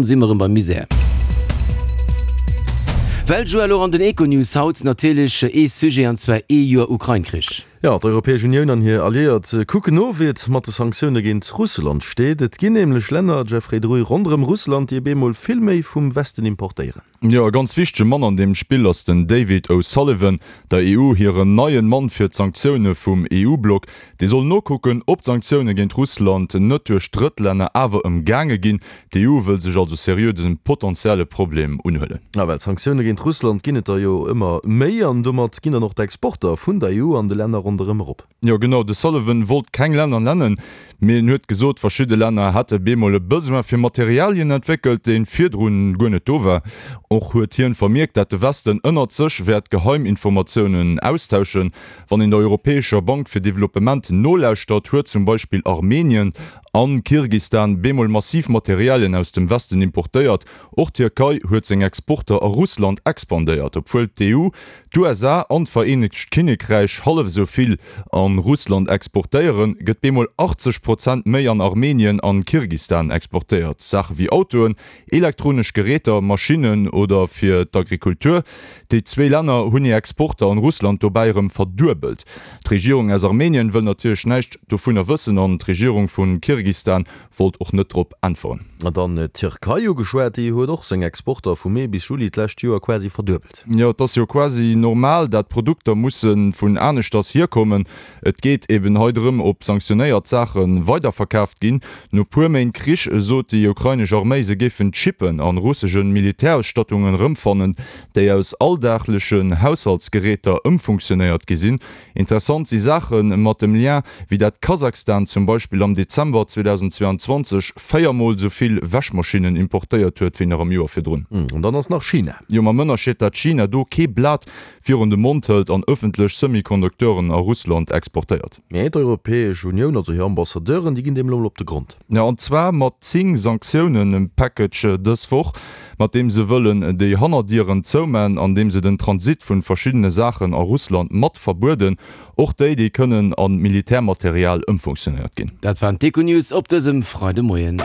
Si mer rëm beim Misär. Well Joël, och an den Econews haut natierlech ee Sujet, an zwar ee Joer Ukrain-Krich. Jo, d'Europäesch Unioun an hir Alliéiert kucken no, wéi et mat de Sanktioune géint Russland steet. Et ginn nämlech Länner, Jeffrey Druy, ronderëm Russland, déi op eemol vill méi vum Westen importéieren. Jo, e ganz wichtege Mann an deem Spill ass den David O'Sullivan, der EU hiren neien Mann fir d'Sanktioune vum EU-Block. Dee soll nokucken, ob d'Sanktioune géint Russland net duerch Drëttlänner awer ëmgaange ginn. D'EU wëll sech also seriö dësem potentielle Problem unhuelen. A well Sanktioune géint Russland ginn et der jo ëmmer méi, an domat ginn dann och d'Exporter vun der EU an de Länner ronderëm erop. Jo genau, de Sullivan wollt keng Länner nennen, mee en huet gesot, verschidde Länner hätte bemol e Besoin fir Materialien entwéckelt, dee virdrun guer net do war. Och huet hien vermierkt, dat de Westen ënnert sech wäert Geheiminformatiounen austauschen. Wann een der Europäescher Bank fir Developpement nolauschtert, huet zum Beispill Armenien an Kirgistan bemol massiv Materialien aus dem Westen importéiert. Och d'Tierkei huet seng Exporter a Russland expandéiert, obwuel d'EU, d'USA an d'Vereenegt Kinnekräich hallef esou vill an Russland exportéieren, gëtt bemol 80 Prozent méi an Armenien an Kirgistan exportéiert. Saache wéi Autoen, Elektronesch Geräter, Maschinnen oder fir d'Agrikultur. Déi zwéi Länner hunn hir Exporter an Russland dobäi erëm verduebelt. D'Regierung aus Armenien wëll natierlech näischt dovunner wëssen an d'Regierung vu Kirgistan wollt och net drop äntweren. An dann d'Tierkei ugeschwat, déi huet och seng Exporter vu Mee bis Juli d'lescht Joer quasi verduebelt. Jo, et ass jo quasi normal, dat Produkter musse vun aneschters hierkommen. Et geet eben hei drëm, ob sanktionéiert Saache weiderverkaaft ginn. No puer Méint Krich sot déi ukrainesch Arméi, se géifen Chippen an russesche Militärausstattungen erëmfannen, déi aus alldaglechen Haushaltsgeräter ëmfunktionéiert gi sinn. Interessant si Saache mat dem Lien, wéi dat Kasachstan zum Beispill am Dezember 2022 véiermol esou vill Wäschmaschinnen importéiert huet, wéi nach am Joer virdrun. An dann ass nach China. Jo, mam Ënnerscheed, dat China do kee Blat virun de Mond hëlt an ëffentlech Semiconducteuren a Russland exportéiert. Mee d'Europäesch Unioun, also hir Ambassadeuren, déi ginn deem elo mol op de Grond. Jo, an zwar mat 10 Sanktiounen-Package dës Woch, mat deem se wëllen déi Hannerdieren zouman, an deem se den Transit vun verschiddene Saachen a Russland mat verbueden, och déi, déi kënnen a Militärmaterial ëmfunktionéiert ginn. Dat waren d'Econews op dësem Freidemoien.